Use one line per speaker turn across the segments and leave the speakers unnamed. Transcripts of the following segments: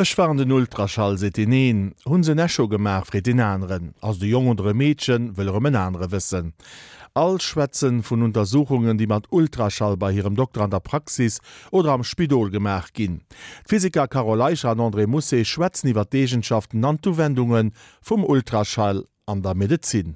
Ech war an den Ultraschall, seet deen een. Hunn se en Echo gemaach, freet deen aneren. Ass et e Jong oder e Meedchen, wëll erëm en anere wëssen. All schwätzen vun Untersuchungen, déi mat Ultraschall bei hirem Dokter an der Praxis oder am Spidol gemaach ginn. D'Physiker Carole Eicher an André Mousset schwätzen iwwer d'Eegenschaften an d'Uwendunge vum Ultraschall an der Medezin.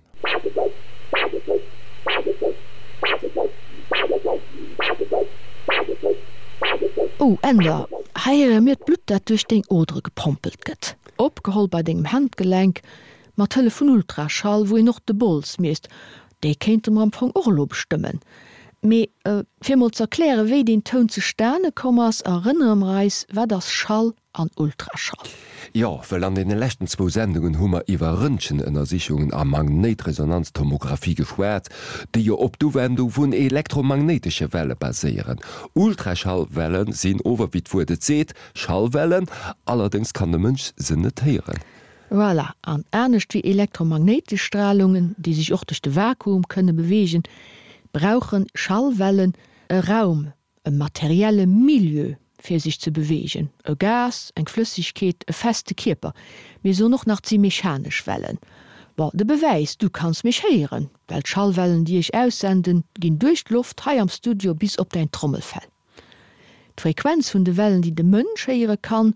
Oh Änder, hei héiere mir d'Blutt dat duerch deng Odere gepompelt gëtt. Opgeholl bei dengem Handgelenk, mat Hëllef vun Ultraschall, wou een och de Bols miesst. Dee kéinte mer am Fong och elo bestëmmen. Mee fir mol z'erkläre wéi deen Toun zustane komm ass, erënnere mer eis, wat ass Schall an Ultraschall.
Jo, well an deene leschten zwou Sendungen hu mer iwwer Röntgenënnersichungen a Magnéitresonanztomographie geschwat, déi jo op d'Uwendung vun elektromagnéitesche Welle baséieren. Ultraschallwelle sinn ower, wéi d'Wuert et seet, Schallwellen, allerdéngs kann de Mënsch se net héieren.
Voilà, an anescht wéi elektromagnéitesch Stralungen, déi sech och duerch de Vakuum kënne beweegen, brauche Schallwellen e Raum, e materielle Milieu fir sech ze beweegen, e Gas, eng Flëssegkeet, e feste Kierper. Mir soen och nach, 't si mechanesch Wellen. Bon, de Bewäis, du kanns mech héieren, well d'Schallwellen, déi ech aussenden, ginn duerch d'Loft hei am Studio bis op däin Trommelfell. D'Frequenz vun de Wellen, déi de Mënsch héiere kann,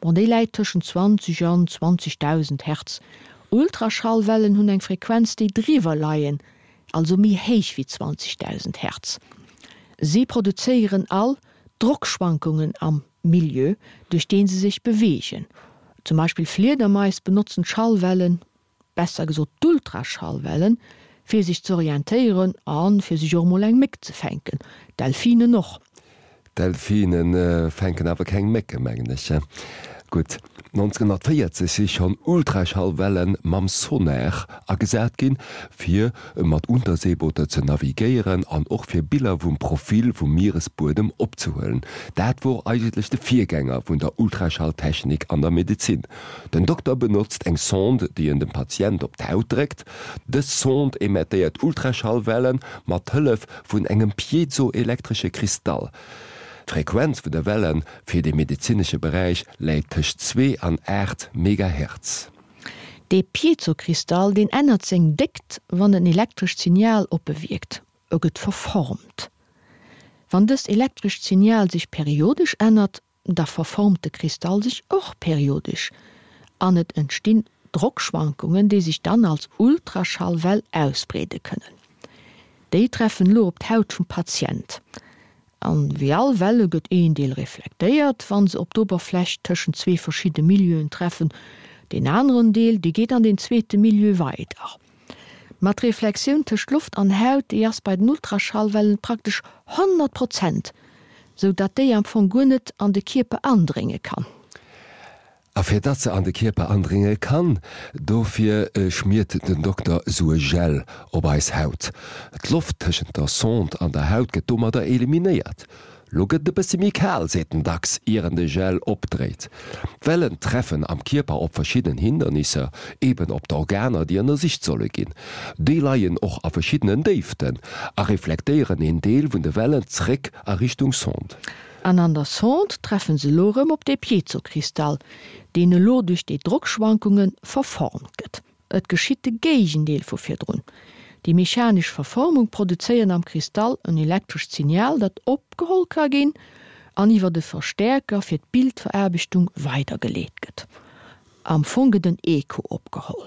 bon, déi läit tëschent 20 an 20.000 Hertz. Ultraschallwellen hunn eng Frequenz, déi driwwer leien, also méi héich wéi 20.000 Hertz. Si produzéieren all Drockschwankungen am Milieu, duerch dee se sech beweegen. Zum Beispill Fliedermais benotzen d'Schallwellen, besser gesot d'Ultraschallwellen, fir sech z'orientéieren a fir sech och emol eng Méck ze fänken. Delfinen och.
Delfine fänken awer keng Mécke mengen ech. Gutt, 1940 si schonn Ultraschallwelle mam Sonar agesat ginn, fir mat Unterseebooter ze navigéieren an och fir Biller vum Profil vum Mieresbuedem opzehuelen. Dat wor eigentlech de Virgänger vun der Ultraschalltechnik an der Medezin. Den Dokter benotzt eng Sonde, déi en dem Patient op d'Haut dréckt. Dës Sonde emettéiert Ultraschallwellen mat Hëllef vun engem piezoelektresche Kristall. D'Frequenz vun de Welle fir de medezinesche Beräich läit tëscht 2 an 8 Megahertz.
Dee Piezokristall, deen ännert seng Déckt, wann en elektrescht Signal op e wierkt, e gëtt verformt. Wann dëst elektrescht Signal sech periodesch ännert, Da verformt de Kristall sech och periodesch an et entstinn Drockschwankungen, déi sech dann als Ultraschallwell ausbreede kënnen. Déi treffen elo op d'Haut vum Patient. An wéi all Welle gëtt een Deel reflektéiert, wann se op d'Oberfläch tëschent zwee verschidde Milieuen treffen, deen aneren Deel, dee geet an deen zweete Milieu weider. Ma d'Reflexioun tëscht Loft an Haut, déi ass bei den Ultraschallwellen praktesch 100 Prozent, sou datt déi am Fong guer net an de Kierper andrénge kann.
A fir datt se an de Kierper andrénge kann, dofir schmiert den Dokter sou e Gel op eis Haut. D'Loft tëschent der Sonde an der Haut gëtt domadder eliminéiert. Lo gëtt et e bëssi méi kal, seet den Dax, ier en de Gel opdréit. D'Wellen treffen am Kierper op verschidden Hindernisser, eben op d'Organer, déi ënnersicht solle ginn. Déi leien och a verschiddenen Déiften a reflektéieren een Deel vun de Wellen zréck a Richtung Sonde.
An an der Sonde treffen se elo erëm op dee Piezokristall, deen elo duerch déi Drockschwankunge verformt gëtt. Et geschitt de Géigendeel vu virdrun. Déi mechanesch Verformung produzéiert am Kristall en elektrescht Signal, dat opgeholl ka ginn an iwwer e Verstäerker fir d'Bildveraarbechtung weidergeleet gëtt. Am Fong gëtt en Echo opgeholl.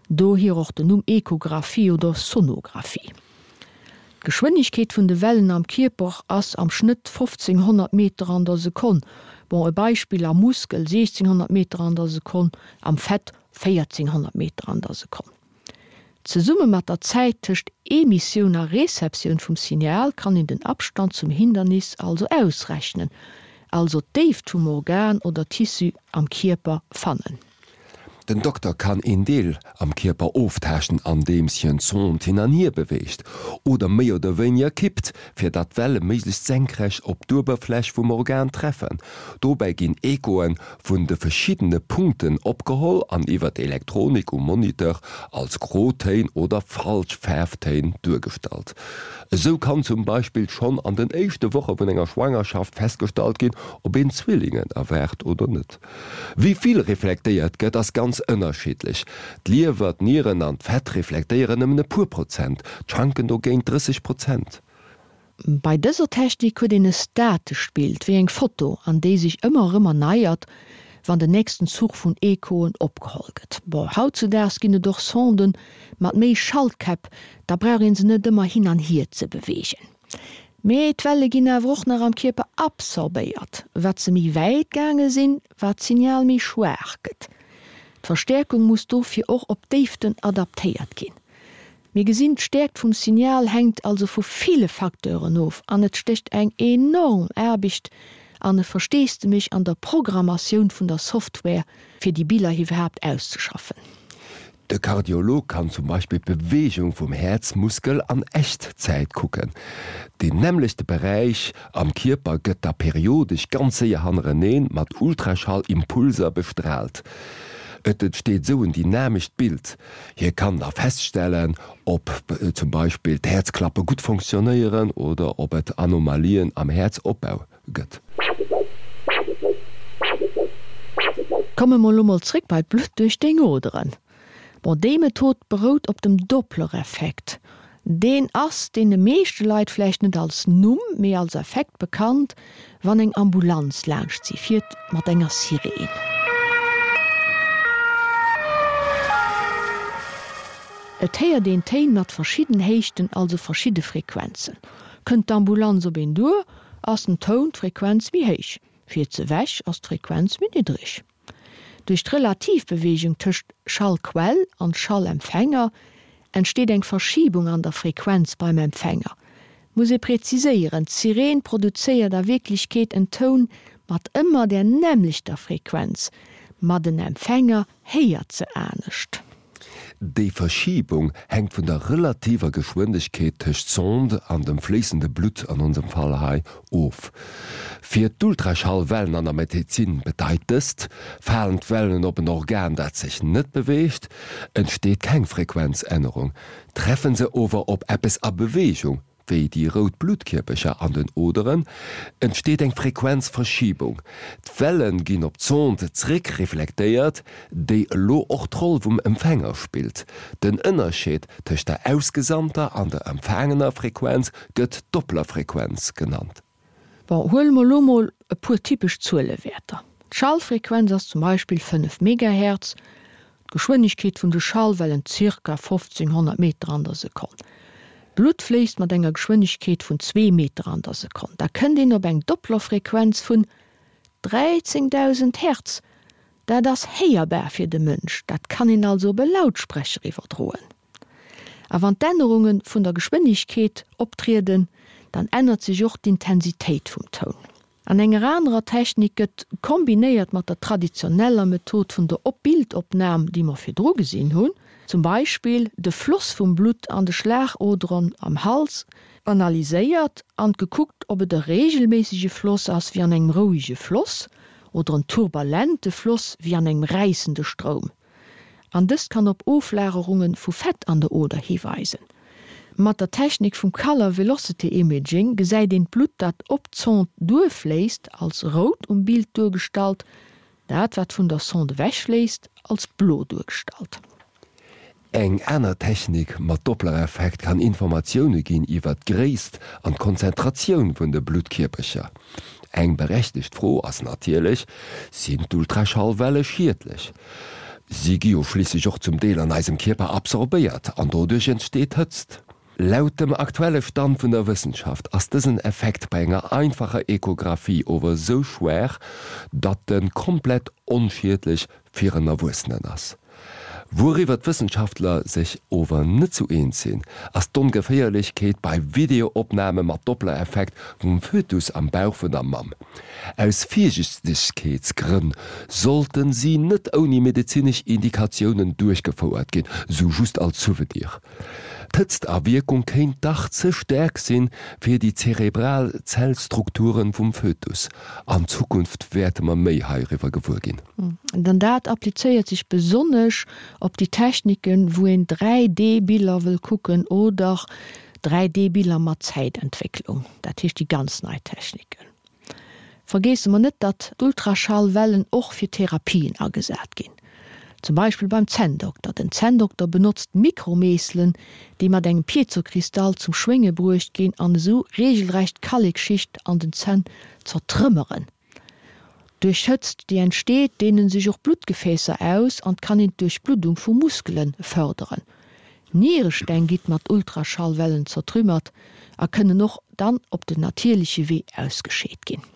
Dohier och den Numm Echographie oder Sonographie. D'Geschwënnegkeet vun de Wellen am Kierper ass am Schnëtt 1500 Meter an der Sekonn. Bon, e Beispill, am Muskel 1600 Meter an der Sekonn, am Fett 1400 Meter an der Sekonn. Zesumme mat der Zäit tëscht Emissioun a Receptioun vum Signal kann een den Abstand zum Hindernis also ausrechnen, also d'Déift vum Organ oder Tissu am Kierper fannen.
Den Dokter kann een Deel am Kierper oftaaschten andeems hien d'Sond hin an hier beweegt oder méi oder wéiniger kippt, fir datt d'Welle méiglechst senkrecht op d'Uewerfläch vum Organ treffen. Dobäi ginn Echoe vun de verschiddene Punkten opgeholl an iwwer d'Elektronik um Moniteur als Grotéin oder falsch Faarftéin duergestallt. Esou kann zum Beispill schonn an den éischte Woche vun enger Schwangerschaft festgestallt ginn, ob een Zwillingen erwaart oder net. Wéi vill reflektéiert gëtt, ass ganz ënnerschiddlech. D'Liewer, d'Nieren an d'Fett reflektéieren nëmmen e puer Prozent, d'Schanken dogéint 30 Prozent.
Bei dëser Technik huet een e statescht Bild, wéi eng Foto, an déi sech ëmmer erëm erneiert, wann den nächsten Zuch vun Echoen opgeholl gëtt. Bon, hautzudaags ginn et och Sonden mat méi Schaltkäpp, da brauch een se net ëmmer hin an hier ze beweegen. Mee d'Welle ginn awer och nach am Kierper absorbéiert. Wat se méi wäit gaange sinn, wat d'Signal méi schwaach gëtt. D'Verstäerkung muss dofir och op d'Déiften adaptéiert ginn. Mir gesinn, d'Stäerkt vum Signal hänkt also vu ville Facteuren of an et stécht eng enorm Aarbecht an e Versteesdemech an der Programmatioun vun der Software, fir déi Biller iwwerhaapt auszeschaffen.
De Kardiolog kann zum Beispill d'Beweegung vum Häerzmuskel an Echtzäit kucken. Deen nämmlechte Beräich am Kierper gëtt da periodesch ganz séier hannereneen mat Ultraschall-Impulser bestraalt. Et entsteet esou en dynamescht Bild. Hie kann da feststellen, ob zum Beispill d'Häerzklappe gutt fonctionnéieren oder ob et Anomalien am Häerzopbau gëtt.
Komme mer elo mol zréck bei d'Blutt duerch deng Oderen. Bon, déi Method berout op dem Dopplereffekt. Deen ass deene meeschte Leit vläicht net als Numm, mee als Effekt bekannt, wann eng Ambulanz laanscht si fiert mat enger Sireen. Et héiert een Téin mat verschidden Héichten, also verschidde Frequenzen. Kënnt d'Ambulanz op een duer, ass den Toun, d'Frequenz méi héich, fiert se ewech, ass d'Frequenz méi niddreg. Duerch d'Relativbeweegung tëscht Schallquell an Schallempfänger entsteet eng Verschibung an der Frequenz beim Empfänger. Muss ee präziséieren, d'Sireen produzéiert a Wierklechkeet en Toun mat ëmmer där nämmlechter Frequenz, ma den Empfänger héiert se anescht.
Déi Verschibung hänkt vun der relativer Geschwindegkeet tëscht Sonde an dem fléissende Blutt, an onsem Fall hei, of. Fir d'Ultraschallwellen an der Medezin bedeit dëst, Falen d'Wellen op en Organ, dat sech net beweegt, entsteet keng Frequenzännerung. Treffen se ower op eppes a Beweegung, wéi déi rout Bluttkierpercher an den Oderen, entsteet eng Frequenzverschiebung. D'Welle ginn op d'Sonde zréck reflektéiert, déi elo och d'Roll vum Empfänger spillt. Den Ënnerscheed tëscht der ausgesandter an der empfaangener Frequenz gëtt Dopplerfrequenz genannt.
Bon, huele mer elo mol e puer typesch Zuelewäerter. D'Schallfrequenz ass zum Beispill 5 Megahertz, d'Geschwënnegkeet vun de Schallwellen zirka 1500 Meter an der Sekonn. D'Blutt fléisst mat enger Geschwënnegkeet vun zwee Meter an der Sekonn. Da kënnt een op eng Dopplerfrequenz vun 13.000 Hertz. Dat ass héierbar fir de Mënsch, dat kann een also op e Lautsprecher iwwerdroen. A wann d'Ännerunge vun der Geschwënnegkeet optrieden, dann ännert sech och d'Intensitéit vum Toun. An enger anerer Technik gëtt, kombinéiert mat der traditioneller Method vun der Op-Bildopnam, déi mer virdru gesinn hunn, zum Beispill de Floss vum Blutt an de Schlagoderen am Hals analyséiert an gekuckt, ob et e reegelméissege Floss ass, wéi an engem rouege Floss, oder en turbulente Floss, wéi an engem räissende Stroum. An dëst kann op Oflagerunge vu Fett an der Oder hiweisen. Mat der Technik vum Color Velocity Imaging gesäit een d'Blutt dat op d'Sonde duerfléisst als rout um Bild duergestallt, dat wat vun der Sonde ewechfléisst als blo duergestallt.
Eng aner Technik mat Dopplereffekt kann Informatioune ginn iwwer d'Gréisst an d'Konzentratioun vun de Bluttkierpercher. Eng berechtegt Fro ass natierlech, Sinn d'Ultraschallwelle schiedlech? Si gi jo schliisslech och zum Deel an eisem Kierper absorbéiert an doduerch entsteet Hëtzt. Laut dem aktuelle Stand vun der Wëssenschaft ass dësen Effekt bei enger einfacher Echographie ower esou schwaach, datt en komplett onschiedlech fir en Erwuessenen ass. Wouriwwer d'Wëssenschaftler sech ower net sou eens sinn, ass d'Ongeféierlechkeet bei Videoopname mat Doppler-Effekt vum Fötus am Bauch vun der Mamm. Aus Virsichtegkeetsgrënn sollten si net ouni medezinesch Indikatiounen duerchgefouert ginn, sou just als Souvenir. D'Hëtztawierkung kéint dach ze staark sinn fir déi zerebral Zellstrukturen vum Fötus. An Zukunft wäerte mer méi heiriwwer gewuer ginn.
An dat applizéiert sech besonnesch op déi Techniken, wou een 3D-Biller wëll kucken oder 3D-Biller mat Zäitentwécklung, dat heescht déi ganz nei Techniken. Vergeesse mer net, datt d'Ultraschallwellen och fir Therapien agesat ginn. Zum Beispill beim Zänndokter. Den Zänndokter benotzt Mikromeesselen, déi mat engem Piezokristall zum Schwénge bruecht ginn an esou reegelrecht d'Kallekschicht an den Zänn zertrëmmeren. Duerch d'Hëtzt, déi entsteet, deenen sech och d'Bluttgefäässer aus an kann een d'Duerchbluddung vu Muskele fërderen. Nieresteng gitt mat Ultraschallwellen zertrümmert a kënnen och dann op den natierleche Wee ausgescheet ginn.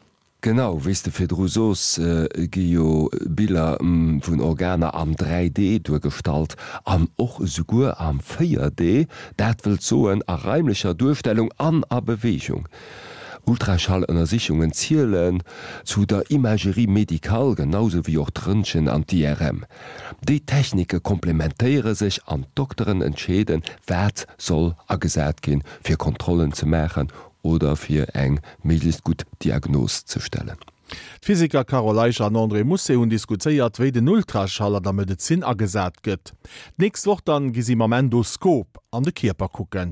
Genau, wéi s de virdru soos, gi jo Biller vun Organer am 3D duergestallt an och esouguer am 4D, dat wëllt soen a raimlecher Duerstellung an a Beweegung. Ultraschallënnersichungen zielen zu der Imagerie médicale, genau sou wéi och d'Röntgen an d'IRM. Déi Technike komplementéiere sech an d'Dokteren entscheeden, wat soll agesat ginn, fir Kontrollen ze maachen oder fir eng méiglechst gutt Diagnos ze stellen.
D'Physiker Carole Eicher an André Mousset hunn diskutéiert, wéi den Ultraschall an der Medezin agesat gëtt. D'nächst Woch dann gi si mam Endoskop an de Kierper kucken.